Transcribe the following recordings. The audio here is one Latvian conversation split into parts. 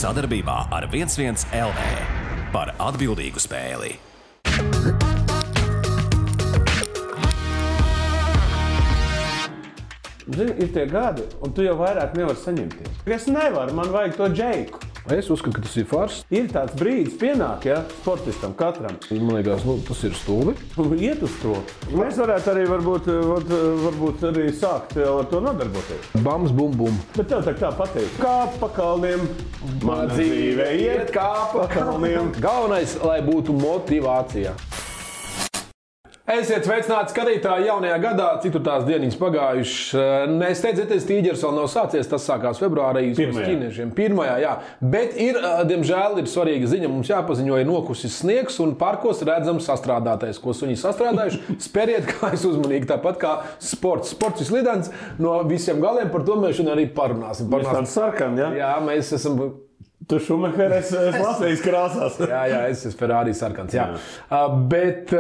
Sadarbībā ar 11 LV par atbildīgu spēli. Zini, ir tie gadi, un tu jau vairāk nevari saņemties. Es nevaru, man vajag to džeiku. Es uzskatu, ka tas ir fars. Ir tāds brīdis pienāk, ja, sportistam katram. Man liekas, tas ir stulbi. Iet uz to. Mēs varētu arī varbūt arī sākt ar to nodarboties. Bams, bum, bum. Bet tev tā pateikt. Kāp pa kalniem. Mana dzīve iet kāp pa kalniem. Galvenais, lai būtu motivācija. Esiet sveicināti skatītāji jaunajā gadā, cik tur tās dieniņas pagājušas. Nesteidzieties, tīģeris vēl nav sācies, tas sākās februārī uz ķīniešiem. Pirmajā, jā. Bet diemžēl, ir svarīga ziņa, mums jāpaziņo, ir nokusis sniegs un parkos redzams sastrādātais, ko suņi sastrādājuši. Speriet kājas uzmanīgi, tāpat kā sports. Sports ir slidens no visiem galiem, par to mēs šodien arī parunāsim. Mēs tam sarkam, ja? Jā, mēs esam... Tu Šumacher, es Latvijas krāsās. Jā, es esmu Ferrari sarkans. Jā. Bet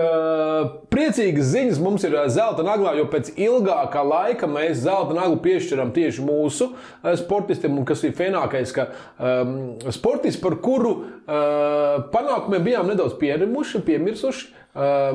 priecīgas ziņas mums ir zelta naglā, jo pēc ilgākā laika mēs zelta naglu piešķiram tieši mūsu sportistiem, un kas ir fenākais, ka sportists, par kuru panākumiem bijām nedaudz piemirsuši,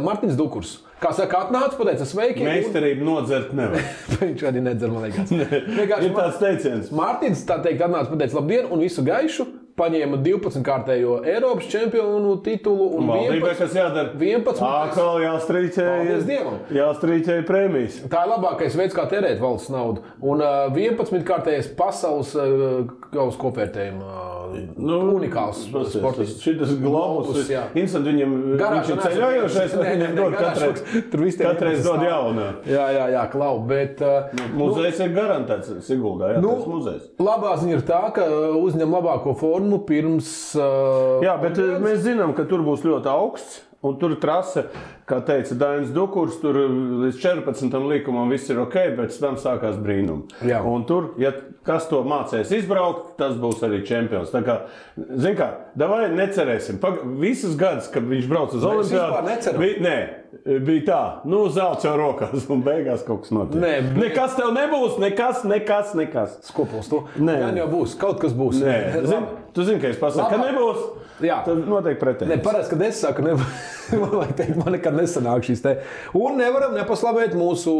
Martins Dukurs. Kā saka, atnāc, pateica sveiki. Meistarību nodzert nevar. Viņš arī nedzer, man liekas. Ir tāds teiciens. Mārtiņš tā teikt atnāca, pateica labdien un visu gaišu. Paņēma 12-kārtējo Eiropas čempionu titulu un valdībai, kas jādara? 11. Atkal jāstrīķēja prēmijas. Tā ir labākais veids, kā tērēt valsts naudu. Un 11-kārtējais pasaules gauss kopvērtējuma unikāls sportists. Šitas globus, instant viņam viņš ir ceļojošais, viņam dod katreiz dod jaunā. Jā, klau, bet... Muzejs ir garantēts Siguldā, jā, tas muzejs. Labā ziņa ir tā, ka uzņem labāko formu pirms... Jā, bet mēs zinām, ka tur būs ļoti augsts, un tur trase, kā teica Dainis Dukurs, tur līdz 14. likumam viss ir ok, bet tam sākās brīnumi. Jā. Un tur, ja kas to mācēs izbraukt, tas būs arī čempions. Tā kā, zin kā, davai necerēsim. Visas gadus, kad viņš brauc uz Olimpiādu, bija tā, zelts jau rokās un beigās kaut kas notiek. Nekas tev nebūs, nekas. Skopuls to. Gan jau būs, kaut kas būs. Tu zini, ka es pasaku, ka nebūs, tad notiek pretējs. Parasti, kad es saku, man nekad nesanāk šīs te. Un nevaram nepaslavēt mūsu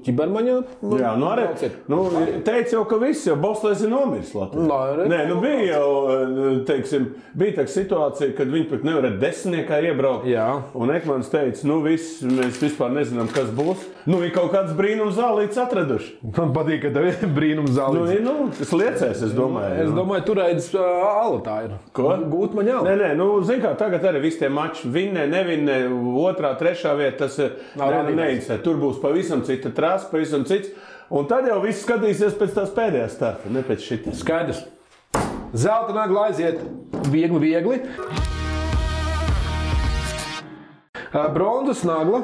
ķibermaņa. Jā, arī. Teica jau, ka viss jau Bostlēs ir nomiris Latvijā. Bija jau, teiksim, bija tā situācija, kad viņi pat nevarēja desmitniekā iebraukt. Jā. Un Ekmans teica, mēs vispār nezinām, kas būs. Ir kaut kāds brīnums zālīts atraduši. Man patīk, ka tev ir brīnums zālīts. Tas liecēs, es domāju. Es domāju, turēdz ala tā ir. Ko? Gūt man jau. Zin kā, tagad arī visi tie mači nevinnē, 2., 3. vieta, tas neinteresē. Tur būs pavisam cita trasa, pavisam cits. Un tad jau viss skatīsies pēc tās pēdējās starta, ne pēc šitas. Skaidrs. Zelta nagla aiziet viegli. Bronzas nagla.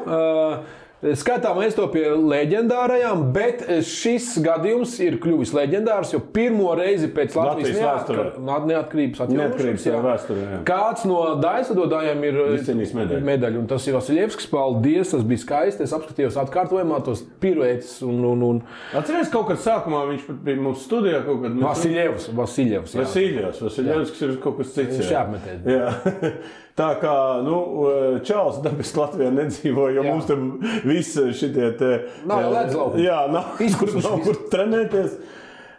Skatām mēs to pie leģendārajām, bet šis gadījums ir kļuvis leģendārs, jo pirmo reizi pēc Latvijas neatkarības vēsturē. Kāds no daļsadotājiem ir medaļu, un tas ir Vasiljevskis. Paldies, tas bija skaisti. Es apskatījos atkārtojumā tos piruētis un... Atceries, kaut kad sākumā viņš bija mūsu studijā kaut kad... Vasiljevskis ir kaut kas cits. Šāpmetēt. Jā. Tā kā, Čāls dabiski Latvijā nedzīvo, jo mums tam viss šitie te... Nav jau ledz laukums. Jā, nav kur trenēties.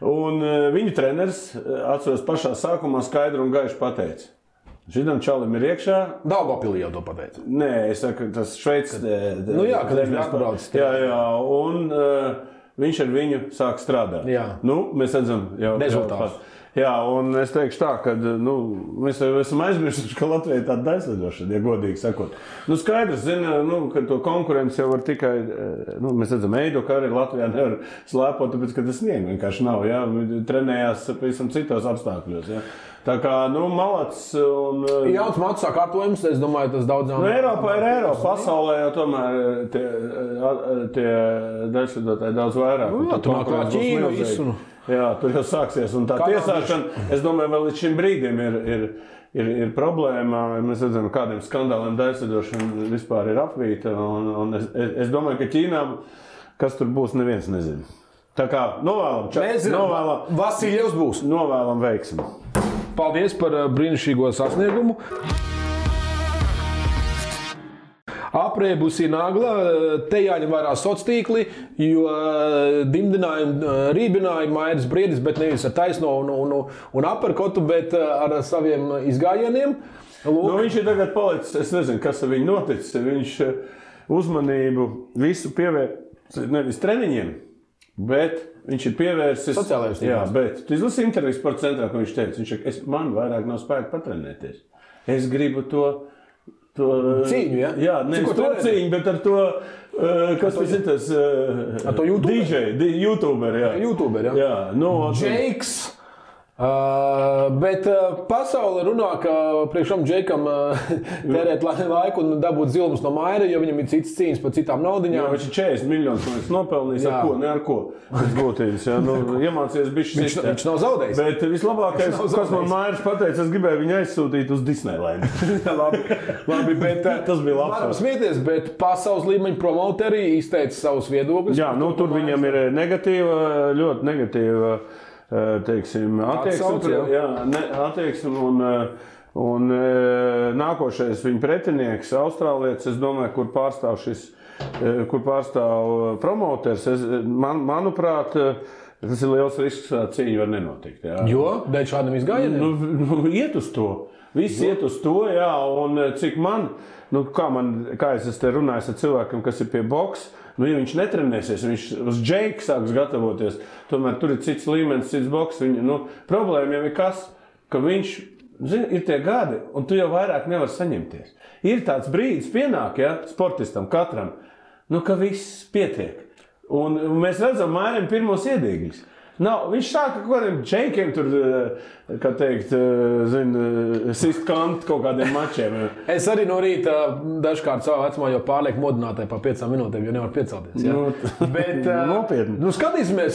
Un viņu treneris, atceros pašā sākumā, skaidri un gaiši pateica. Šitam Čalim ir iekšā. Daugavpilī jau to pateica. Nē, es saku, tas Šveicis... kad viņš atbrauc. Jā, un viņš ar viņu sāk strādāt. Jā. Mēs redzam jau... Rezultāts. Jā, un es teikšu tā, ka mēs esam aizmirsuši, ka Latvija ir tāda daļslidošana, ja godīgi sakot. Skaidrs, ka to konkurenci jau var tikai, mēs redzam, Eido, ka arī Latvijā nevar slēpot, tāpēc, ka tas sniegu vienkārši nav, jā, trenējās pavisam citos apstākļos, jā. Tā kā, malacis un... Jauns matu sakārtojums, es domāju, tas daudzām... Eiropā ir Eiropa, pasaulē jau tomēr tie daļslidotāji daudz vairāk. Tu nāk kā Ķīna visu. Jā, tur jau sāksies, un tā tiesāšana, es domāju, vēl līdz šim brīdim ir problēma. Mēs redzam, kādiem skandāliem daļslidošana vispār ir apvīta, un es domāju, ka Ķīnā, kas tur būs, neviens nezina. Tā kā novēlam, Vasiljevs būs. Novēlam veiksmi. paldies par brīnišķīgo sasniegumu. Aprēbusi nagla, te jāņem vērā sociālā tīkli, jo dimdinājumi, rībināja Mairis Briedis, bet nevis ar taisno un aperkotu, bet ar saviem izgājieniem. Nu, viņš ir tagad palicis, es nezinu, kas ar viņu noticis. Viņš uzmanību visu pievērst nevis treniņiem, bet viņš ir pievērsis sociālajiem tīkliem. Jā, bet tu izlasi interviju Sporta centrā, ko viņš teica. Man vairāk nav spēka patrenēties. Es gribu to cīņu, ja? Jā, nevis to cīņu, bet ar to, kas tas ir tas ar to YouTuber? DJ, YouTuber, jā. YouTuber, jā. Jā, no, Džeiks. Bet pasaule runā, ka priekšam Džeikam tērēt laiku un dabūt zilums no Maira, jo viņam ir citas cīņas par citām naudiņām. Jā, viņš ir 40 miljonus nopelnījis, ar ko, ne ar ko. Tas būtības, jā, nu, iemācies bišķi sistēt. Viņš nav zaudējis. Bet vislabākais, kas man Mairis pateica, es gribēju viņu aizsūtīt uz Disneyland. labi, bet tas bija labs. Varam smieties, bet pasaules līmeņa promoteri izteica savus viedokļus. Jā, nu, tur viņam ir negatīva, ļoti negatīva, teiksim, attieksme un nākošais viņa pretinieks, austrālietis, es domāju, kur pārstāv promoters. Manuprāt, tas ir liels risks, ka cīņa var nenotikt. Jā. Jo? Dēļ šādam izgājieniem? Nu, iet uz to. Viss iet uz to, jā, un cik kā es te runāju ar cilvēkiem, kas ir pie boks, nu, ja viņš netrenēsies, viņš uz Džeiku sāks gatavoties, tomēr tur ir cits līmenis, cits boks. Problēma jau ir kas, ka viņš, zini, ir tie gadi, un tu jau vairāk nevar saņemties. Ir tāds brīdis pienāk, ja, sportistam katram, nu, ka viss pietiek. Un mēs redzam Mairim pirmos iedīgļus. Viņš sāka kaut kādiem Džeikiem tur, kā teikt, sist kantu kaut kādiem mačiem. Es arī no rīta dažkārt savā vecumā jau pārlieku modinātāju pa 5 minūtēm, jo nevar piecelties. Ja? Bet, nopietni. Nu, skatīsimies,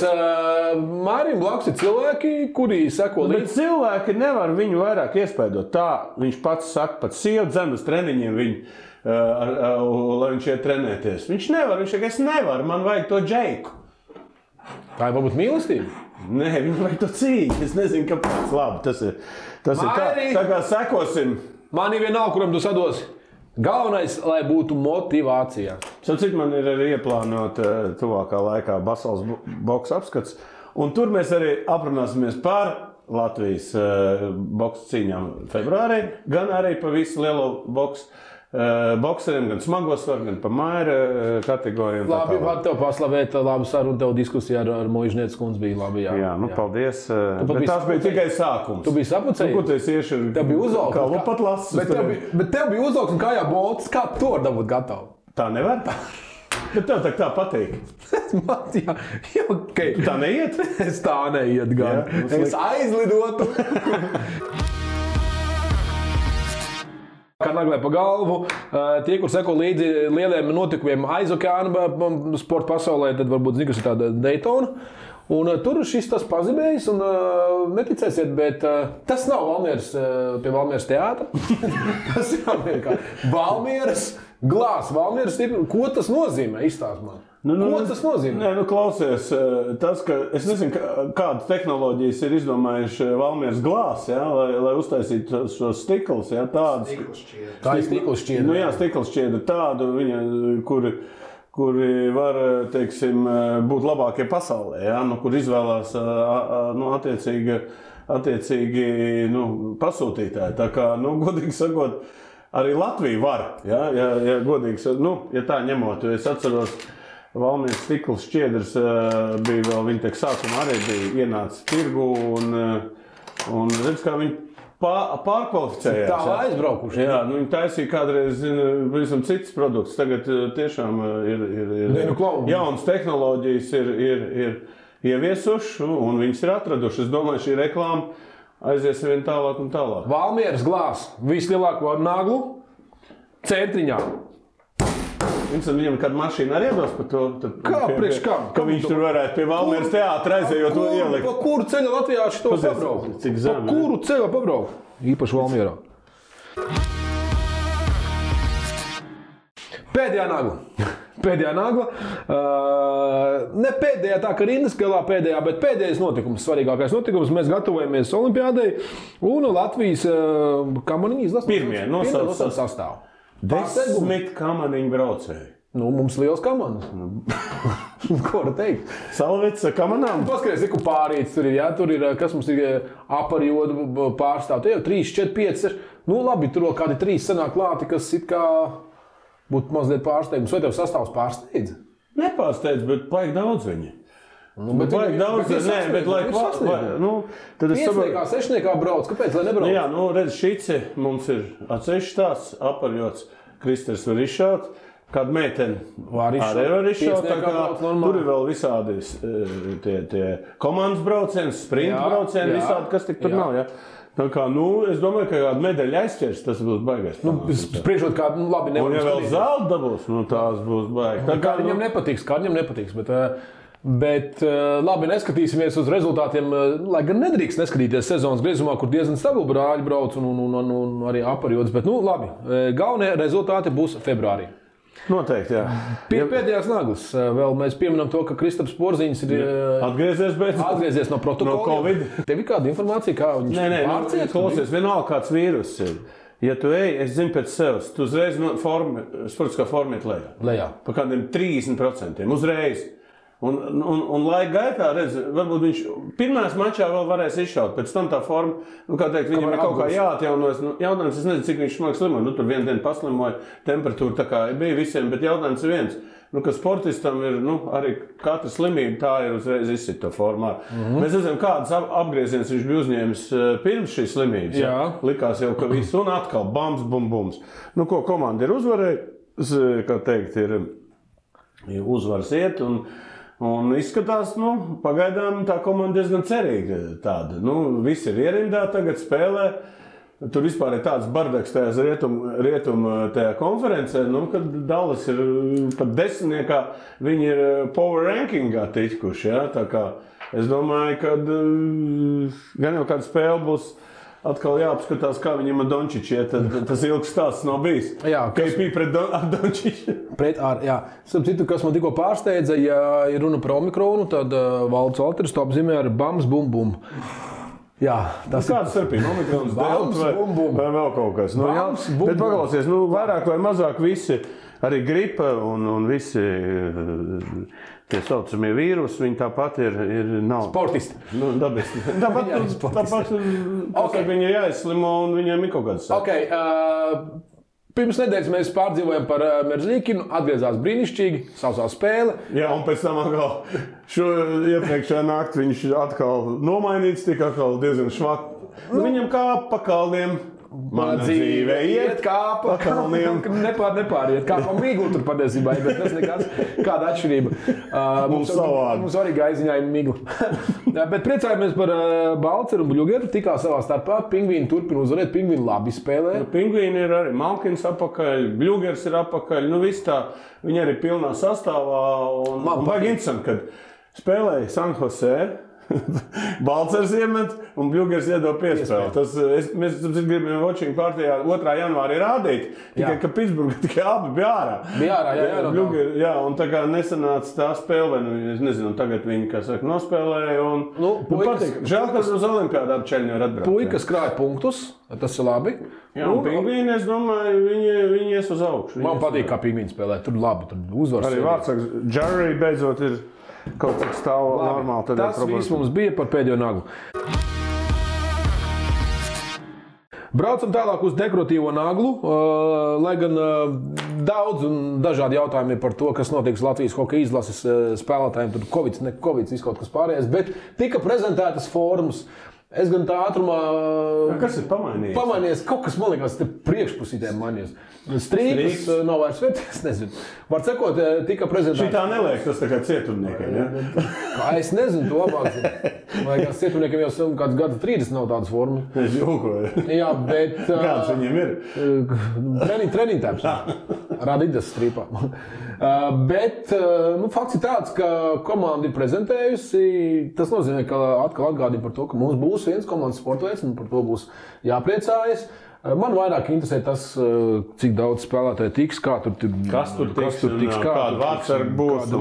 Mairim blakus ir cilvēki, kuri seko līdzi. Bet cilvēki nevar viņu vairāk iespaidot. Tā viņš pats saka, pat sieva dzen uz treniņiem viņu, lai viņš iet trenēties. Viņš nevar, viņš saka, es nevaru, man vajag to Džeiku. Tā ir varbūt mīlestība? Nē, viņam vajag to cīņu. Es nezinu, kāpēc. Labi, tas ir tā kā sekosim. Man ir vienalga, kuram tu sadosi. Galvenais, lai būtu motivācija. Cik man ir arī ieplānot tuvākā laikā pasaules boks apskats. Un tur mēs arī aprunāsimies par Latvijas boks cīņām februārī, gan arī pa visu lielo bokseriem, gan smago svaru, gan pa Maira kategorijām. Labi, var tev paslavēt, labu sarunu, tev diskusija ar Moižnieces kundzi bija labi. Jā, nu, paldies. Bet tās bija tikai sākums. Tu biji sapucējies? Nu, ko tu esi ieši? Tev bija uzaugs. Kā lupat lasis. Bet tev bija uzaugs un kājā bolts. Kā tu var dabūt gatavu? Tā nevar? Bet tev tā patīk. Jā, okay. Tu tā neiet? Es tā neiet gan. Jā, es aizlidotu. Kā naglē pa galvu, tie, kur seko līdzi lieliem notikumiem aiz okeāna sporta pasaulē, tad varbūt zini, kas ir tāda Daytona. Un tur šis tas pazibējis, un neticēsiet, bet tas nav Valmieras pie Valmieras teātra. Tas ir Valmieras glāzs, Valmieras stipri. Ko tas nozīmē? Izstāst man. Ko tas nozīmē? Nē, klausies, tas, ka es nezinu, kādas tehnoloģijas ir izdomājuši Valmieras glāzs, ja, lai uztaisītu šos stiklus, ja, tādas. Tā ir stikls šķiedra. Nu jā, stikls šķiedra tādu, kuri var, teiksim, būt labākie pasaulē, ja, kur izvēlās attiecīgi pasūtītāji. Tā kā, godīgi sakot, arī Latvija var, ja godīgi, ja tā ņemot, es atceros, Valmieras stikls šķiedrs bija vēl, viņa tiek sākumā arī bija ienācis tirgu un redz, kā viņi pārkvalificējās. Tā aizbraukuši. Jā, viņi taisīja kādreiz, pavisam citas produktus. Tagad tiešām ir jaunas tehnoloģijas ir ieviesuši un viņas ir atraduši. Es domāju, šī reklāma aizies vien tālāk un tālāk. Valmieras glāzs, vislielāko naglu centriņā. Viņam kāda mašīna arī iedos par to? Priekš kam? Ka viņš tur varētu pie Valmieras teātra aizējot to ielikt. Pa kuru ceļu Latvijā šito pabraukt? Cik zem? Pa kuru ceļu pabraukt? Īpaši Valmierā. Pēdējā nagla. Pēdējā nagla. Ne pēdējā, tā kā rindas galā pēdējā, bet pēdējais notikums, svarīgākais notikums. Mēs gatavojamies Olimpiādai un Latvijas kamaniņu izlases. Pirmie nosauc sastāvu. 10 kamaniņu braucēji. Nu, mums liels kamanas. Ko var teikt? Salvets kamanām? Paskaties, cik pārīts tur ir, jā, tur ir, kas mums ir aparjodu pārstāv. Te jau 3, 4, 5, 6. Nu, labi, tur vēl kādi 3 sanāk klāti, kas it kā būtu mazliet pārsteigums. Vai tev sastāvs pārsteidz? Nepārsteidz, bet vajag daudz viņi. Nu, bet vajag daudz, bet lai tad es saprotu. Sešniekā brauc, kāpēc, lai nebrauc? Jā, nu, redz, šice mums ir atsevišķi tāds aparjods, Kristers var izšaut. Kāda meitene arī var izšaut, tā kā tur ir vēl visādi tie komandas braucieni, sprinta braucieni, visādi, kas tik tur nav, ja? Tā kā, nu, es domāju, ka kāda medaļa aizķers, tas būs baigais. Nu, spriežot kādu, nu, labi, nevar. Un ja vēl zelta dabūs, nu, tās būs baigi. Kā viņam nepatiks, bet labi, neskatīsimies uz rezultātiem, lai gan nedrīkst neskatīties sezonas griezumā, kur diezgan stabili brāļi brauc un arī aparjods, bet, nu, labi, galvenie rezultāti būs februārī. Noteikti, jā. Pēdējās naglas. Vēl mēs pieminam to, ka Kristaps Porziņš ir atgriezies no protokola. No Covid. Tev ir kāda informācija, kā viņš pārciet? Klausies, vienalga kāds vīrus ir. Ja tu ej, es zinu pēc sevis, tu uzreiz sportiskā forma iet lejā. Pa kādiem 30%. Uzreiz. Un laika gaitā, redz, varbūt viņš pirmās mačā vēl varēs izšaut, pēc tam tā forma, nu, kā teikt, viņam ir kaut kā jāatjaunojas. Nu, jautājums, es nezinu, cik viņš smagi slimoja. Nu, tur vienu dienu paslimoja, temperatūra tā kā bija visiem, bet jautājums ir viens. Nu, ka sportistam ir, nu, arī katra slimība tā ir uzreiz izsit to formā. Mēs redzam, kādas apgrieziens viņš bija uzņēmis pirms šīs slimības. Jā. Likās jau, ka viss un atkal bams, bums. Nu, ko komanda ir uzvarējusi, kā teikt, ir uzvaras iet un izskatās, nu, pagaidām tā komanda diezgan cerīga tāda. Nu, visi ir ierindā, tagad spēlē. Tur vispār ir tāds bardaks tajās rietum tajā konferencē, nu, kad Dallas ir pat 10. Viņi ir power rankingā tikuši, jā. Tā kā es domāju, ka gan jau kāda spēle būs atkal jāapskatās, kā viņam ar Dončiču iet, tas ilgs stāsts nav bijis. Jā, KP pret Dončiču. Jā. Citu, kas man tikko pārsteidza, ja ir runa par Omikronu, tad Valds Valters to apzīmē ar bams, bum, bum. Jā, tas kāds starpība, Omikrons, delta vai vēl kaut kas. Nu, bams, jā, bet paklausies, nu, vairāk vai mazāk visi, arī gripa un visi tie saucamie vīrusi, viņi tāpat nav. Sportisti. Nu, dabisti. Tāpat viņi ir jāizslimo un viņiem ir kaut kāds sāk. Okay, pirms nedēļas mēs pārdzīvojam par Merzlikinu, atgriezās brīnišķīgi, sausā spēle. Jā, un pēc tam atkal iepriekšējā naktī viņš atkal nomainīts, tika atkal diezgan švak. Nu, viņam kā pa kalniem. Mana dzīve iet kā pa kalniem. Nepāriet, kā pa miglu tur patiesībā, bet tas nekāds kāda atšķirība. Mums arī gaiziņā ir migla. Bet priecājamies par Balceru un Bļugeru, tikā savā starpā. Pingvīni turpina uzvarēt, pingvīni labi spēlē. Nu, pingvīni ir arī Malkins apakaļ, Bļugers ir apakaļ, nu viss tā, viņi arī pilnā sastāvā. Un baigi interesanti, kad spēlēja San Jose. Balcers iemet un Bļugers iedod piespēli. Mēs gribējām watching partijā 2. janvārī rādīt, tikai ka Pitsburga tikai abi bija ārā. Jā, un tā kā nesanāca tā spēle, es nezinu, tagad viņi, kā saka, nospēlēja un patīk. Žēl, ka uz Olimpiādā Čeļņi var atbraukt. Puikas krāja punktus, tas ir labi. Jā, un pingvīni, es domāju, viņi ies uz augšu. Man patīk, kā pingvīni spēlē, tur labi, tur uzvaras. Arī vārdsaks, Jerry beidzot ir kaut cik stāv normāli. Tas viss mums bija par pēdējo naglu. Braucam tālāk uz dekoratīvo naglu, lai gan daudz un dažādi jautājumi ir par to, kas notiks Latvijas hokeja izlases spēlētājiem. Tur Covid, ne Covid, viss kaut kas pārējais, bet tika prezentētas formas. Es gan tā ātrumā... Kas ir pamainījies? Pamainījies kaut kas, man liekas, te priekšpusītēm mainījies. Strīpas nav vairs vērts, es nezinu. Var sakot, tika prezentēts... Šitā neliek, tas tā kā cietumniekiem, ja? Es nezinu, to labāk. Vai kāds cietumniekiem jau kāds gada 30 nav tādas formas. Es jūkoju. Jā, bet... Kāds viņiem ir? Treniņtēps. Radidas strīpā. Bet fakts ir tāds, ka komanda ir prezentējusi. Tas nozīmē, ka atkal atgādina par to, ka mums būs viens komandas sportveids un par to būs jāpriecājas. Man vairāk interesē tas, cik daudz spēlētāji tiks, kas tur tiks, kāda vārdsarga būs.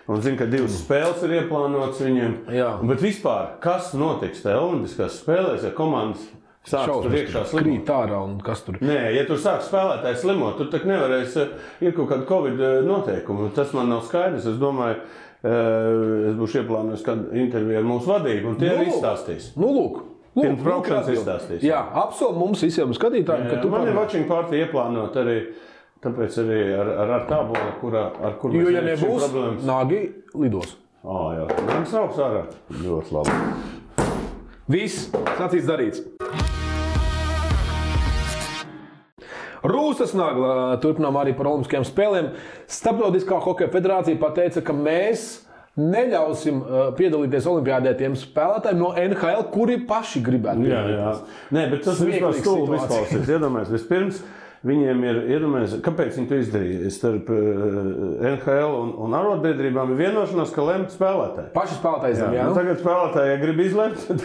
Un zinu, ka 2 spēles ir ieplānotas viņiem. Jā. Bet vispār, kas notiks tajā olimpiskās spēlēs, ja komandas sāks tur iekšā slimot? Krīt ārā un kas tur? Nē, ja tur sāks spēlētāji slimot, tur tak nevarēs, ir kaut kāda Covid noteikumi. Tas man nav skaidrs. Es domāju, es būšu ieplānojis kādu interviju ar mūsu vadību, un tie arī izstāstīs. Lūk. Pirms braukšanas izstāstīs. Jā, apsolu mums visiem skatītājiem, ka tu man ir watching party ieplānot arī, tāpēc arī ar tābolu, ar kur mēs ja nebūs problēmas. Nāgi lidos. Jā, nāks augs ārā. Ļoti labi. Viss, sacīts darīts. Rūsas Nagla turpinām arī par olimpiskajām spēlēm. Starptautiskā hokeja federācija pateica, ka mēs neļausim piedalīties olimpiādē tiem spēlētājiem no NHL, kuri paši gribētu piedalīties. Jā. Nē, bet tas vispār stulbi izklausīs. Iedomājies, vispirms viņiem ir, kāpēc viņi to izdarīja? Starp NHL un arotbiedrībām ir vienošanās, ka lemt spēlētāji. Paši spēlētāji zem, jā? Tagad spēlētāji, ja grib izlemt, tad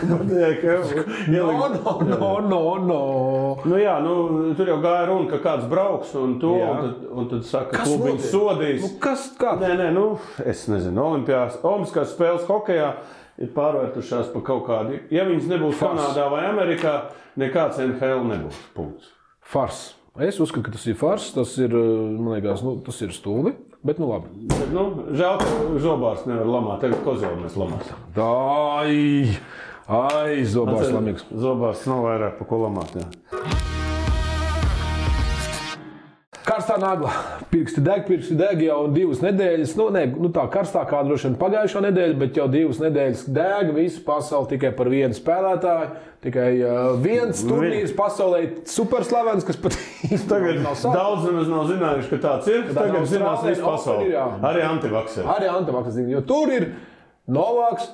No. Tur jau gāja runa, ka kāds brauks un tad saka, klubiņš sodīs. Nē, es nezinu, olimpiskās spēles hokejā ir pārvērtušās pa kaut kādu. Ja viņas nebūs Kanādā vai Amerikā, nekāds NHL nebūs. Punkts. Fars. Es uzskatu, ka tas ir fars, tas ir, man liekas, tas ir stulbi, bet labi. Bet, žēl, ka Zobārs nevar lamāt, tagad Kozēlu mēs lamāsim. Zobārs lamīgs. Zobārs nav vairāk pa ko lamāt, jā. Karstā Nagla. Pirksti deg jau 2 nedēļas. Tā karstākā droši vien pagājušā nedēļa, bet jau 2 nedēļas deg visu pasauli tikai par vienu spēlētāju. Tikai viens turnīrs pasaulē superslavens, kas pat tagad daudz nemaz nav zinājuši, ka tāds ir. Tagad zinās visu pasauli. Arī antivakseri. Jo tur ir Novaks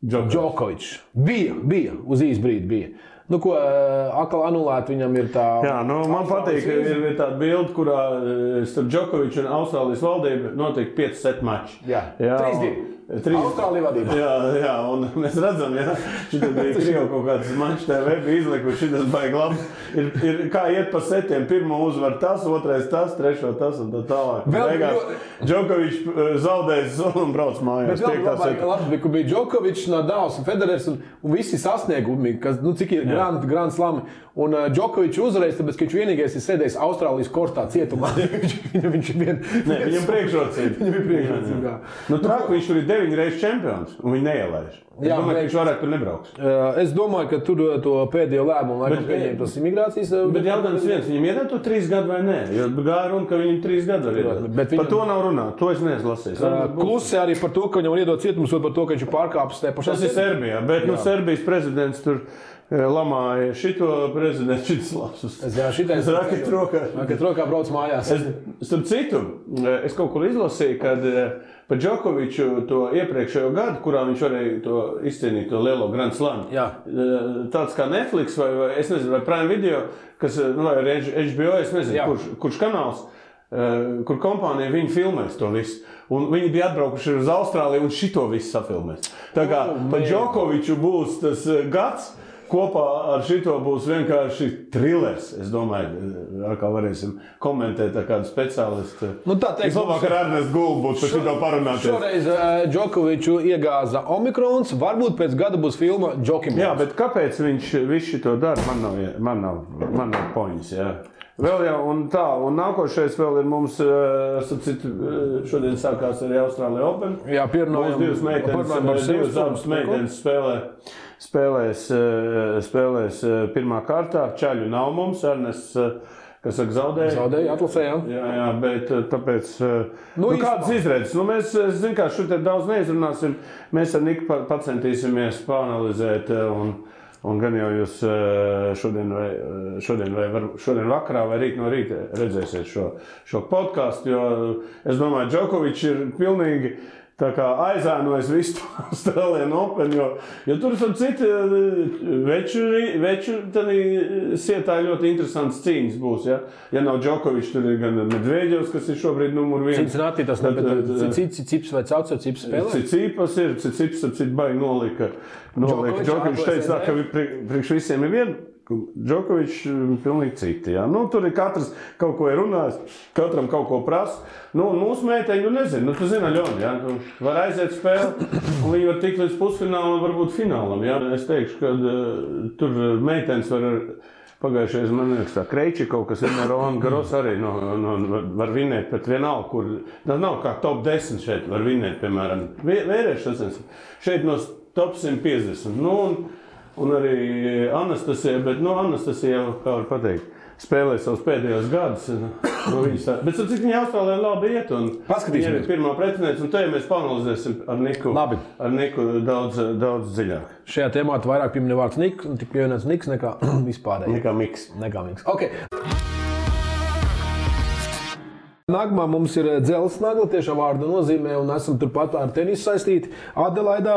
Džokovičs. Bija, uz īsu brīdi bija. Ko atkal anulēt viņam ir tā... Jā, man patīk, ka ir tāda bilde, kurā starp Džokoviču un Austrālijas valdību notiek 5 set mači. Jā, 3-2. Austrālija vadībā. Jā, un mēs redzam, šitas bija Krievu kaut kāds mačs TV, bija izlikuši, šitas baigi labi. Ir kā iet pa setiem, pirmo uzvar tas, otrais tas, trešo tas un tā tālāk. Beigās Džokovičs zaudējis un brauc mājās. Bet labi, ka bija Džokovičs, Nadals un Federers un visi sasniegumi, kas, cik ir Grand Slami. Un Džokovičs uzreiz, tāpēc, ka viņš vienīgais ir sēdējis Austrālijas kortā cietumā. Viņam priekšrocība. Trāk, viņš tur ir 9 reizes čempions, un viņi neielaiž. Es domāju, ka viņš varētu tur nebrauks. Es domāju, ka tur to pēdējo lēmumu laikam pieņem tas imigrācijas... Bet jautājums viens, viņam iedod to 3 gadu vai nē? Jo gāja runa, ka viņam 3 gadu var iedod. Par to nav runāt, to es neesmu lasījis. Klusi arī par to, ka viņam var iedot cietums, par to, ka viņš ir pārkāpis te pašā. Tas ir Serbijā, bet Serbijas prezidents tur lamāja šito prezidentu, šitas lapsus. Šitais raket rokā brauc mājās. Starp citu, es kaut kur izlasīju, kad par Džokoviču to iepriekšējo gadu, kurā viņš varēja to izcīnīt, to lielo Grand Slam. Tāds kā Netflix vai es nezinu, vai Prime Video, kas, vai HBO, es nezinu, kurš kanāls, kur kompānija viņi filmēs to visu. Un viņi bija atbraukuši uz Austrāliju un šito visu safilmēs. Tā kā par Džokoviču būs tas gads, kopā ar šito būs vienkārši trilers. Es domāju, kā varēsim komentēt ar kādu speciālistu. Labāk ar Ernestu Gulbu būtu par šito parunāties. Šoreiz Džokoviču iegāza Omikrons, varbūt pēc gada būs filma Džokimons. Jā, bet kāpēc viņš visu šito dara? Man nav poņas, jā. Vēl jau, un nākošais vēl ir mums, šodien sākās arī Austrālija Open. Jā, pierunājam. Divas meitenes spēlēs pirmā kārtā. Čaļu nav mums, Ernests, kas saka, zaudēja. Zaudēja, atlasē, jā. Jā, bet tāpēc, kādas izredzes? Mēs, zinu, kā šodien daudz neizrunāsim, mēs ar Niku pacentīsimies pāanalizēt un gan jau jūs šodien vakarā vai rīt no rīta redzēsiet šo podcastu, jo es domāju, Džokovičs ir pilnīgi tā kā aizēnojas visu Australian Open, jo tur ir citi veču sietā ļoti interesants cīņas būs, ja? Ja nav Džokovičs, tur ir gan Medveģevs, kas ir šobrīd numur 1. Cincinnati, tas Cips vai Caucer Cips spēlē? Cips ir, Cips baigi nolika. Džokovičs teica, ka priekš visiem ir viena. Džokovičs pilnīgi citi. Ja? Nu, tur ir katrs kaut ko ir runājis, katram kaut ko prasa. Nu, mūsu meiteņi, nezinu, tu zini, Ļoni, ja? Tu var aiziet spēli, un viņi var tikt līdz pusfinālam, varbūt finālam. Ja? Es teikšu, ka tur meitenes var pagājušajā, man liekas, tā Kreičikov, kas ir Roland Garros arī var vinēt, bet vienalga, kur, tas nav kā top 10 šeit var vinēt, piemēram, vērieši sasniedz. Šeit no top 150. Nu, un arī Anastasija, bet Anastasija jau, kā var pateikt, spēlē savus pēdējos gadus. Bet cik viņa Austrālijā labi iet, un viņa ir pirmā pretiniece, un te mēs panalizēsim ar Niku daudz dziļāk. Šajā tēmā vairāk pieminē vārds Niks, un tik pievienots Niks nekā vispārēji. Nekā Miks. Okay. Nākamā mums ir dzelzs nagla, tiešām vārda nozīmē, un esam turpat ar tenisu saistīti. Adelaidā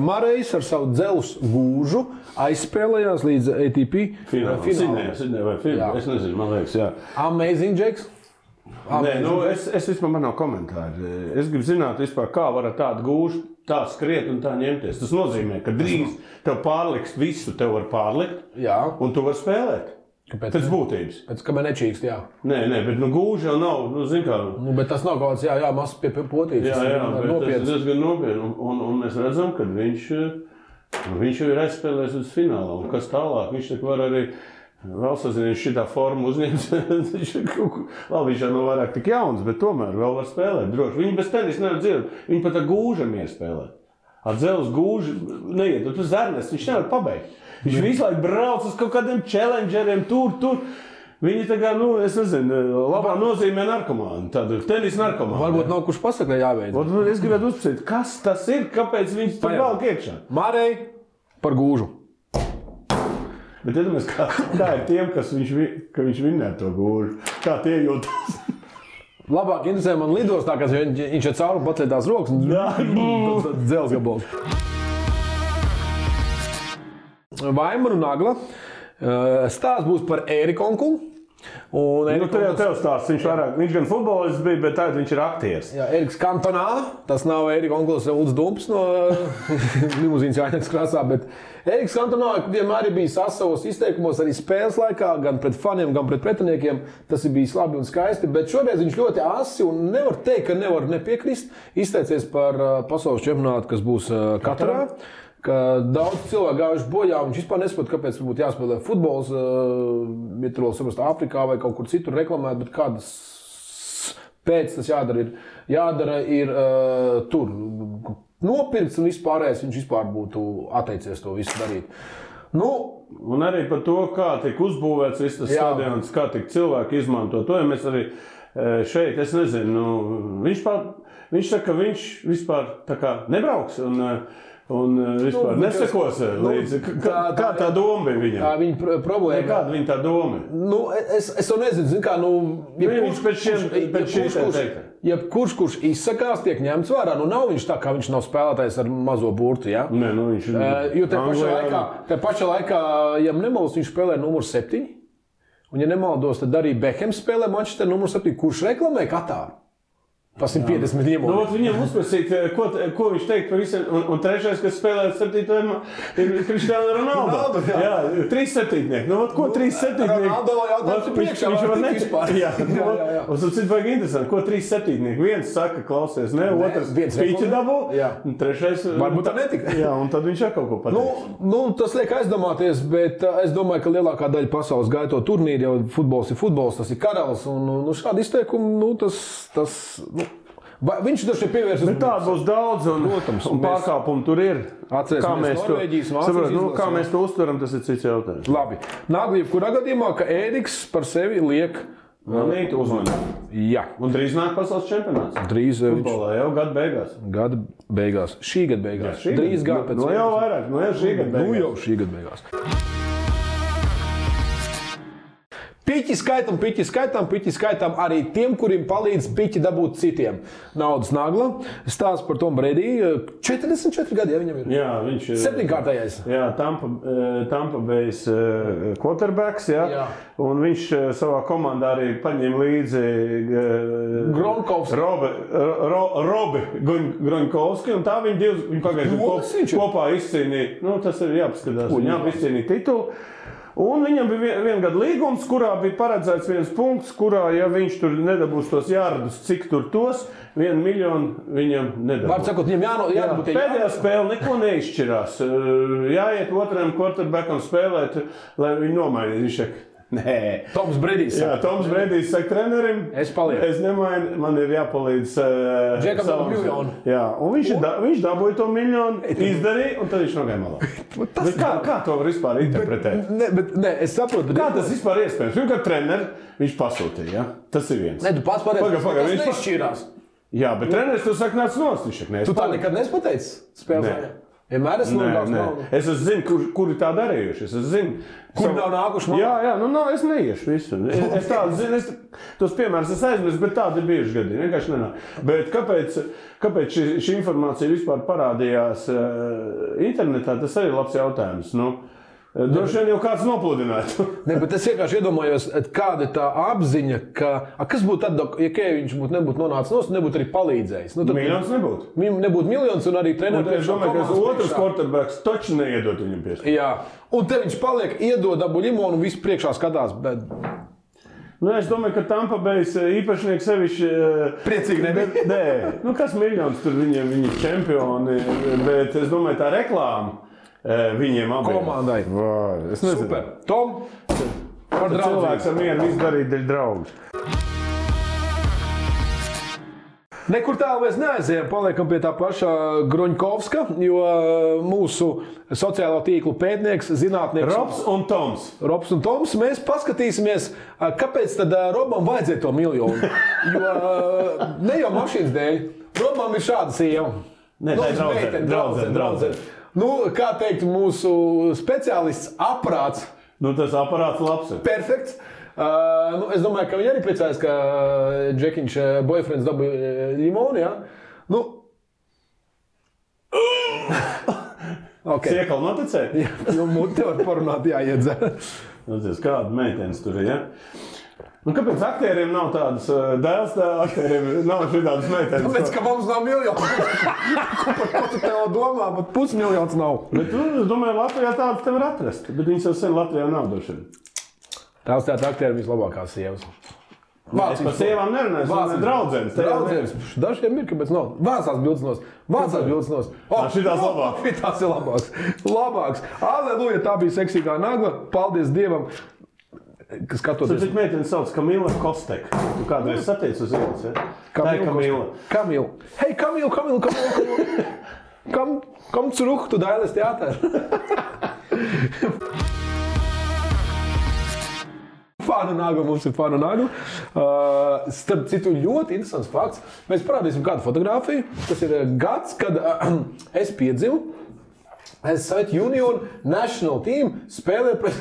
Marejs ar savu dzelzs gūžu aizspēlējās līdz ATP finālam. Sidnejā vai finālam, es nezinu, man liekas, jā. Amazing, Džeks? Nē, es vispār man nav komentāri. Es gribu zināt vispār, kā var ar tādu gūžu tā skriet un tā ņemties. Tas nozīmē, ka drīz tev pārliks visu, tev var pārlikt, un tu var spēlēt. Kāpēc? Pēc būtības. Pēc kamēr nečīkst, jā. Nē, bet gūži jau nav, zin kā. Bet tas nav kaut kāds, mazs pie potītes. Jā, bet tas ir diezgan nopietni. Un mēs redzam, ka viņš jau ir aizspēlējis uz finālu. Un kas tālāk? Viņš tak var arī vēl sazinies šitā formu uzņemt. Labi, viņš jau nav vairāk tik jauns, bet tomēr vēl var spēlēt droši. Viņi bez tenis nevar dzirdēt. Viņi pat ar gūžam ir spēlēt. Ar dzelzs gūži neiet. Tu zernes, viņš nevar pabeigt. Viņš visu laiku brauc uz kaut kādiem challengeriem, tur. Viņi tā kā, es nezinu, labā nozīmē narkomāni, tādu tenis narkomāni. Varbūt nav kurš pasaka, jāveic. Es gribētu uzpasīt, kas tas ir, kāpēc viņš tur valk iekšā? Marej par gūžu. Bet iedomājies, kā ir tiem, ka viņš vinnē to gūžu. Kā tie jūtas? Labāk interesē man lidostā, ka viņš ir cauri patlietās rokas un dzels gabals. Vaimara un Nagla. Stāsts būs par Ēriku onkulu. Tev stāsts, viņš gan futbolists bija, bet tagad viņš ir aktieris. Jā, Ēriks Kantonā, tas nav Ērika onkulis Ulds Dumps no limuzīnas Jāņakas krāsā, bet Ēriks Kantonā vienmēr ir bijis savos izteikumos arī spēles laikā, gan pret faniem, gan pret pretiniekiem. Tas ir bijis labi un skaisti, bet šoreiz viņš ļoti asi un nevar teikt, ka nevar nepiekrist. Izteicies par pasaules čempionātu, kas būs Katarā. Ka daudz cilvēku gājuši bojā, un viņš vispār nesaprot, kāpēc būtu jāspēlē futbols, ja tur vēl saprast Āfrikā vai kaut kur citur reklamēt, bet kādas pēc tas jādara ir tur nopirkts un vispārējais viņš vispār būtu atteicies to visu darīt. Un arī par to, kā tiek uzbūvēts viss tas stadions, kā tiek cilvēki izmanto to, ja mēs arī šeit, es nezinu, viņš saka, ka viņš vispār tā kā nebrauks un vispār nesekos līdzi. Kā tā doma bija viņam? Tā viņa problēma. Kāda viņa tā doma? Es to nezinu. Kurš izsakās, tiek ņemts vērā. Nav viņš tā, kā viņš nav spēlētājs ar mazo burtu. Ja? Nē, viņš ir. Jo te pašā laikā, ja nemaldos, viņš spēlē numur 7. Un, ja nemaldos, tad arī Bekhams spēlē Manchester numur 7. Kurš reklamē Katāru? Pa 150 ņemot. Viņam uzprasīt, ko viņš teikt par visiem. Un trešais, kas spēlē 7. ir Cristiano Ronaldo. Jā, 3 septītnieki. Ko 3 septītnieki? Ronaldo jautājums priekšā var tikt vispār. Un cits vajag interesanti, ko 3 septītnieki. Viens saka, klausies, ne, otrs spīķi dabū. Un trešais. Varbūt tā netika. Jā, un tad viņš kaut ko pateiks. Tas liek aizdomāties, bet es domāju, ka lielākā daļa pasaules gaito turnīri, jau futbols ir futbols, tas ir karalis. Un šādi izteikumi, viņš taču ir pievērsis. Bet tāda būs daudz, un pārkāpumi tur ir. Kā mēs to uztveram, tas ir cits jautājums. Labi. Nagla, jebkurā gadījumā, ka Ēriks par sevi liek uzmanību. Jā. Un drīz nāk pasaules čempionāts. Drīz futbolā jau gada beigās. Gada beigās. Šī gada beigās. Jā, drīz gada pēc. Jau vairāk, jau šī gada beigās. Jau šī gada beigās. Piķi skaitām arī tiem, kuriem palīdz piķi dabūt citiem. Naudas nagla. Stāsts par Tomu Brediju. 44 gadi, ja viņam ir. Jā, viņš ir 7-kārtējais. Jā, Tampa Bay's quarterbacks, jā. Un viņš savā komandā arī paņēma līdzi Robi Groņkovski, un tā viņi pagājuši kopā izcīnīja. Nu, tas ir jāpaskatās. Viņi abi izcīnīja titulu. Un viņam bija viena gada līgums, kurā bija paredzēts viens punkts, kurā, ja viņš tur nedabūs tos jārdus, cik tur tos, 1 miljonu viņam nedabūs. Var sakot, viņam jābūt. Pēdējā spēle neko neizšķirās. Jāiet otram quarterbackam spēlēt, lai viņi nomainītu. Viņš saka, nē. Toms Bredijs. Jā, Toms Bredijs saka trenerim, es nemainu, man ir jāpalīdz Džekam savam miljonu. Jā, un viņš dabūja to miljonu, izdarīja, un tad viņš nogāja malā. Kā to var vispār interpretēt? Es saprotu. Kā tas vispār iespējams? Pirmkārt, treneri viņš pasūtīja, ja? Tas ir viens. Tu pats pareizi, tas nešķīrās. Jā, bet treneris tu saka, nāc nost, viņš saka, tu tā nekad nespateici spēlē? Vienmēr es nogāju. Es zinu, kuri tā darījuši. Es zinu, kuri nav nākuši man? Jā, es neiešu visu. Es tādu zinu, tos piemērus es aizmirstu, bet tādi ir bijuši gadi. Vienkārši nenāk. Bet kāpēc šī informācija vispār parādījās internetā, tas arī labs jautājums. Droši vien jau kāds nopludinātu. Bet es vienkārši iedomājos, kāda ir tā apziņa, kas būtu tad, ja Keviņš nebūtu nonācis nost, nebūtu arī palīdzējis. Miljons nebūtu. Nebūtu miljons un arī treneris. Es domāju, ka otrs quarterbacks taču neiedot viņam piespēju. Jā, un te viņš paliek, iedod dabu limonu un visu priekšā skatās. Bet... Es domāju, ka Tampa Bay's īpašnieks sevišķi priecīgi nebija. Nē, kas miljons tur viņi čempioni, bet es domāju, tā reklāma. Viņiem abiem. Komandai. Es nezinu. Super. Tom, par draudzību. Cilvēks ar mieru izdarīt dēļ draugus. Nekur tālu mēs neaizējām, paliekam pie tā paša Groņkovska, jo mūsu sociālo tīklu pētnieks, zinātnieks... Robs un Toms, mēs paskatīsimies, kāpēc tad Robam vajadzēja to miljonu. Jo ne jau mašīnas dēļ, Robam ir šāda sieva. Nē, tā ir draudzene. Kā teikt, mūsu speciālists aprāts. Tas aparāts labs ir. Perfekts. Es domāju, ka viņi arī priecājas, ka Džekiņš boyfriends dabūja limonu, jā? Siekali noticēja? Jā, muti var parunāt, jāiedzer. Kāda meitenes tur ir, ja? Kāpēc aktieriem nav tādas dēls, aktieriem nav šitādas meitenes? Tāpēc, ka mums nav miljonu. Ko tu tev domā, bet pusmiljons nav. Bet es domāju, Latvijā tādas tev var atrast, bet viņas jau sen Latvijā nav došana. Tās tāda aktieri vislabākās sievas. Es par sievām nerunāju, es draudzenes. Dažiem ir, kāpēc nav. Vācās bildes nos. Šitās labāks. Šitās ir labāks. Aleluja, tā bija seksīgā nagla. Paldies Dievam. Skatoties. Tad meitene sauc Kamila Kostek. Tu kādreiz sateici uz ielas, ja? Tā ir Kamila. Kamila. Hei, Kamila. Komm zurück, tu dailes Theater. Fāna nagla, mums ir fāna nagla. Starp citu, ļoti interesants fakts. Mēs parādīsim kādu fotogrāfiju. Tas ir gads, kad es piedzimu. Soviet Union National Team spēlē pret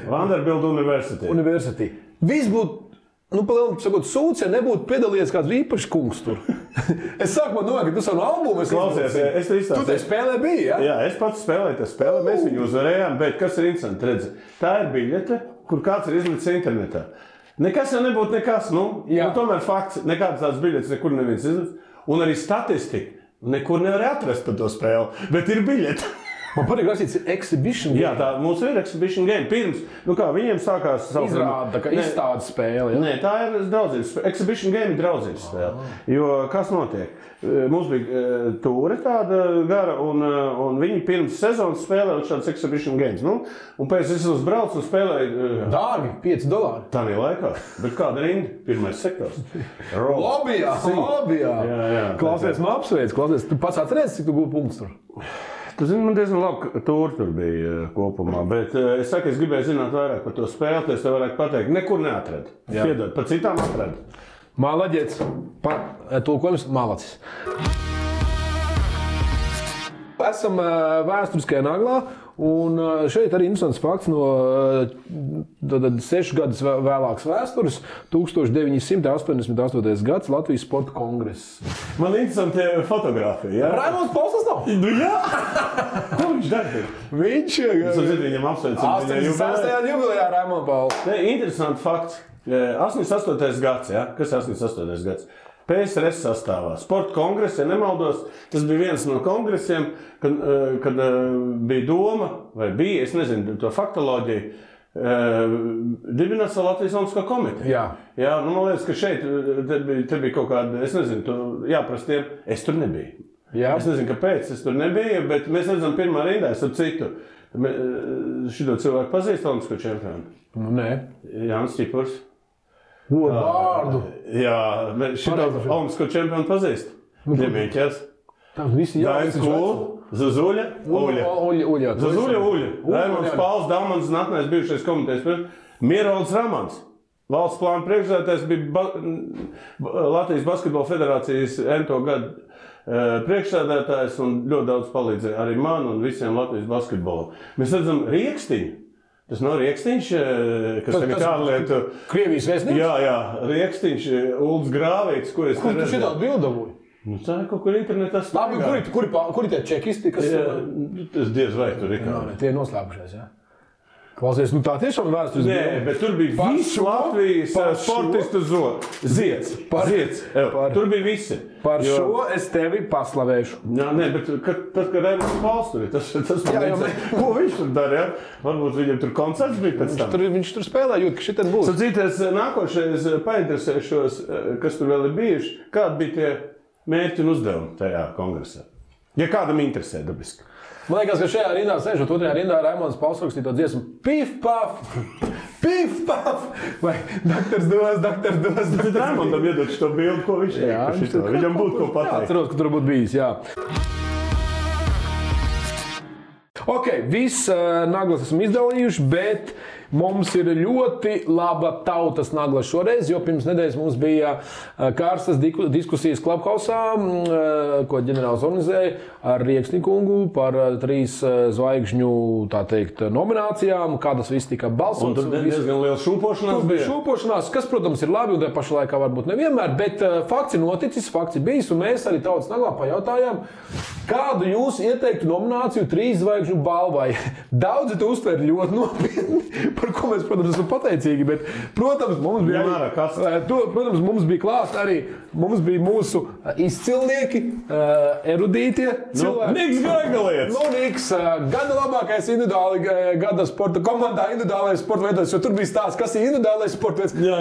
Vanderbilt University. Viss būtu, palielam sakot, sūds, ja nebūtu piedalījies kāds īpašs kungs tur. Es sākumā domāju, ka tu savu albumu klausies, es izstāstīju. Tu te spēlē biji, ja? Jā, es pats spēlēju tā spēlē, mēs viņu uzvarējām, bet kas ir interesanti, redzi, tā ir biļete, kur kāds ir izlicis internetā. Nekas jau nebūtu nekas, tomēr fakts, nekādas tādas biļetes nekur neviens izlicis, un arī statistika. Nekur nevar atrast par to spēli, bet ir biļete. Man patīk rakstīts exhibition game. Jā, tā mums ir exhibition game. Pirms, viņiem sākās izrāda, ka izstādes spēle. Ja? Nē, tā ir draudzības spēle. Exhibition game ir draudzības spēle. Jo kas notiek? Mums bija tūre tāda gara, un viņi pirms sezonas spēlēja šādas exhibition games. Un pēc es uzbraucu un spēlēju... Dārgi, $5. Tā bija laikā. Bet kāda rinda? Pirmais sektors. Lobijā. Jā. Klausies, man apsveic. Tu pats atceries, cik tu gūti punktus tur? Tu zini, man diezgan labi, ka tur bija kopumā, bet es saku, es gribēju zināt vairāk par to spēli, es tev varētu pateikt, nekur neatradu. Piedod, par citām atradu. Malaģets, tulkojums malacis. Esam vēsturiskajā naglā, Un šeit arī interesants fakts no 6 gadus vēlākas vēstures, 1988. gads Latvijas sporta kongress. Man interesanti fotogrāfija, jā? Raimonds Pauls tas nav? Nu jā! Ko viņš dara? Viņš Viņam apsveicam. 86. jubilejā Raimonds Pauls. Interesants fakts. 88. gads, jā? Kas ir 88. gads? PSRS sastāvā. Sporta kongress, ja nemaldos, tas bija viens no kongresiem, kad bija doma, vai bija, es nezinu, to faktoloģiju, dibināt savu Latvijas Olimpisko komiteju. Jā, nu, man liekas, ka šeit te bija kaut kāda, es nezinu, jāprast tiem, es tur nebiju. Jā. Es nezinu, kāpēc es tur nebiju, bet mēs redzam pirmā rindā, es ar citu. Šito cilvēku pazīst Olimpisko čempionu? Nē. Jānis Čipurs. Vārdu. Jā, šitā Olimpisko čempionu pazīst. Ņemieķers. Dainis Kūl, Zazuļa, Uļa. Zazuļa, Uļa. Raimonds Pauls, Dalmans, Natnais bijušais komitejas. Mierolds Ramans. Valsts plāna priekšsēdētājs bija Latvijas basketbola federācijas ento gadu priekšsēdētājs un ļoti daudz palīdzēja arī man un visiem Latvijas basketbolam. Mēs redzam Riekstiņu. Tas nav Riekstiņš, kas tagad ārlietu... Krievijas vēstnieks? Jā, Riekstiņš, Ulds Grāvīts, ko es... Kur tu šitā bildavoji? Nu, tā ir kaut kur internetā staigā. Labi, kuri tie čekisti, kas... Tas diez vai tur ir kā. Tie ir noslēpušies, jā. Klausies, nu tā tiešām vēstures bija. Nē, bet tur bija viss Latvijas sportistu zieds. Tur bija visi. Par šo es tevi paslavēšu. Jā, nē, bet tad, kad Raimonds Pauls tur ir, tas ko viņš tur dara, jā? Varbūt viņam tur koncerts bija pēc tam. Viņš tur spēlē, jūt, ka šitien būs. Sacīties, nākošais painteresēšos, kas tur vēl ir bijuši, kādi bija tie mērķi un uzdevumi tajā kongresā. Ja kādam interesē, dabiski. Man liekas, ka šajā rindā sēžot, otrajā rindā Raimonds Pauls rakstīja to dziesmu Pif, paf, pif, paf, vai daktars dos. Tad Raimondam iedod šo bildi, ko viņš teikt. Viņam būtu ko pateikt. Jā, atceros, ka tur būtu bijis, jā. Ok, viss naglas esam izdalījuši, bet mums ir ļoti laba tautas nagla šoreiz, jo pirms nedēļas mums bija kārstas diskusijas Clubhouse, ko ģenerālis organizēja ar Rieksni kungu par 3 zvaigžņu, tā teikt, nominācijām, kā tas viss tika balsots. Un tur diezgan liela šūpošanās bija. Šūpošanās, kas, protams, ir labi un tajā pašā laikā varbūt nevienmēr, bet fakts ir noticis, fakts ir bijis, un mēs arī tautas naglā pajautājām, kādu jūs ieteiktu nomināciju 3 zvaigžņu balvai. Daudzi to uztver ļoti nopietni, par ko mēs, protams, esam pateicīgi, bet, protams, mums bija klāt arī, mums bija mūsu izcilnieki, erudītie cilvēki. Niks Graigalietis! Niks, gada labākais individuāli, gada sporta komandā individuālais sporta veidos, jo tur bija stāsts, kas ir individuālais sporta veids. Jā.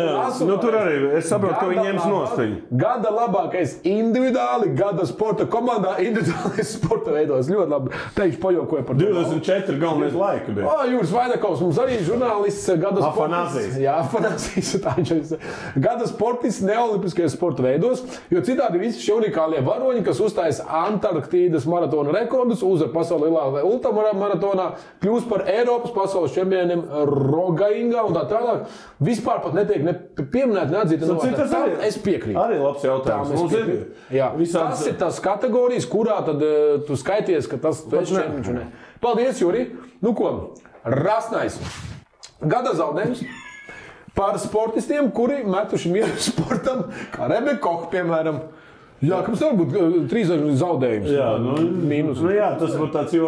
Nu, tur arī, es saprotu, ka viņi ņems nost viņu. Gada labākais individuāli, gada sporta komandā individuālais sporta veidos. Ļoti labi. Teikšu pajokoju par to. 24 galvenais laika bija. Jūras Vaidakovs, mums arī žurnālists, gada sportists. Jā, Afanāzijas. Gada sportists neolimpiskajos sporta veidos, jo citādi visi šie unikālie varoņi, kas uzstājas Antarktīdas maratona rekordus, uzvar pasauli lielā ultramaratonā, kļūst par Eiropas pasaules čempioniem Rogaingā un tā tālāk. Vispār pat netiek pieminēt, neatzīta. Es piekrītu. Arī labs jautājums. Tas ir tās kategorijas, kurā tad tu skaities, ka tas tu esi čempions. Paldies, Juri. Nu ko, rasnais. Gada zaudējums par sportistiem, kuri metuši mieru sportam, kā Rebeka Koch, piemēram. Jā, kāpēc nevar būt 3 zaudējums? Jā, mīnus. Jā, tas būtu tāds jo...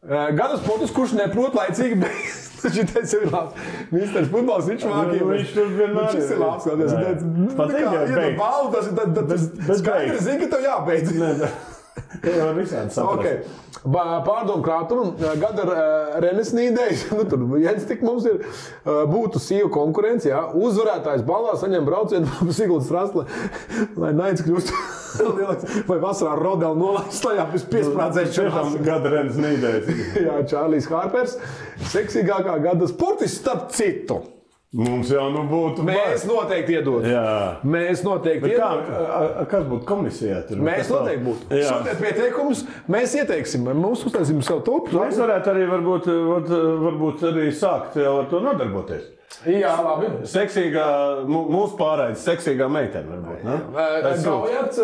Gada sportists, kurš neprot laicīgi beigt. Šitais jau ir labs. Misters futbols, viņš mākīja. Viņš tur vienmēr ir labs. Tas skaidri zina, ka tev jābeidz. Tā jau visādi saprast. Pārdomu krātumu, gada Renesnīdējs, tur viens tik mums ir, būtu sīva konkurence, jā. Uzvarētājs balvā saņem braucienu pa Siguldas Strasle, lai naids kļūst vai vasarā Rodela nolaist lejā pēc piesprādzēšanās. Gada Renesnīdējs. Jā, Čārlijs Hārpers, seksīgākā gada sportists starp citu. Mums jau būtu... Mēs noteikti iedot. Jā. Mēs noteikti iedot. Kas būtu komisijā? Tur? Mēs noteikti būtu. Sūtiet pieteikumus, mēs ieteiksim. Mums uztaisīsim savu tulpu. Mēs varētu arī varbūt arī sākt jau ar to nodarboties. Jā, labi. Seksīgā, mūsu pārraides seksīgā meitene varbūt, ne? Gaujats,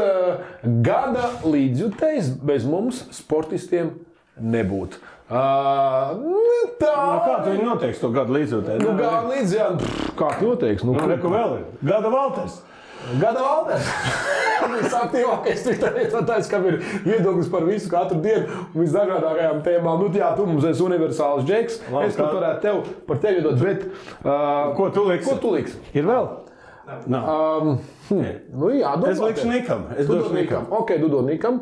gada līdzjutējs bez mums sportistiem nebūtu. Tā. Kā tu viņu noteiks to gadu līdzotē? Gadu līdz, jā. Kā tu noteiks? Reku vēl ir. Gada Valters. Gada Valters. Visaktīvākais Twitteris, kam ir viedoklis par visu katru dienu un visdažādākajām tēmām. Jā, tu mums esi universāls džeks. Es pat varētu par tevi dot, bet... Ko tu liksi? Ko tu liksi? Ir vēl? Jā, domā. Es likšu Nikam. Es došu Nikam. Ok, tu dod Nikam.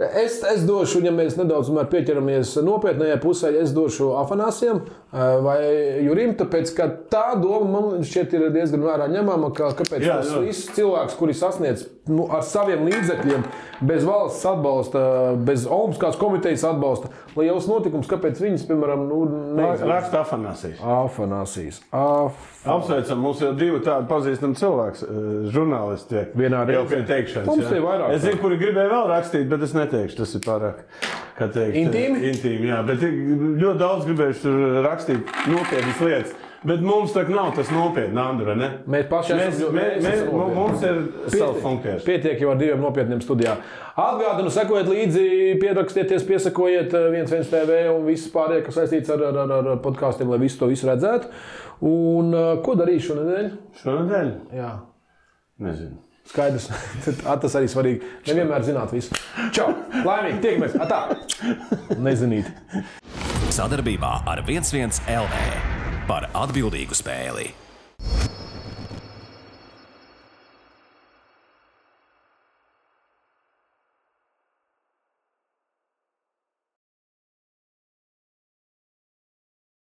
Es došu, ja mēs nedaudz pieķeramies nopietnējai pusē, es došu Afanāsijam vai Jurim, tāpēc, ka tā doma man šķiet ir diezgan vērā ņemama, kāpēc tas viss cilvēks, kuri sasniedz ar saviem līdzekļiem, bez valsts atbalsta, bez Olimpiskās komitejas atbalsta, liels notikums, kāpēc viņas, piemēram, Raksta Afanāsijas. Afanāsijas. Apsveicam, mums jau divi tādi pazīstami cilvēks, žurnālisti vienā jau pie teikšanas. Mums ir vairāk. Es zinu, kuri gribēja vēl rakstīt, bet es neteikšu, tas ir pārāk, kā teikt, intīmi? Intīmi, jā, bet ļoti daudz gribējuši tur rakstīt nopietnas lietas. Bet mums tā nav tas nopietni, Andra, ne? Mēs paši mums ir savs funkcijas. Pietiek jau ar diviem nopietniem studijā. Atgādinu, sekojiet līdzi, pierakstieties, piesakojiet 11 TV un viss pārējie, kas saistīts ar podkāstiem, lai visu to redzētu. Un ko darīšu šonedēļ? Šonedēļ? Jā. Nezinu. Skaidrs. Tas arī svarīgi. Nevienmēr zināt visu. Čau! Laimīgi! Tiekamies! Atā! Nezinīt. Sadarbībā ar 11 LV par atbildīgu spēli.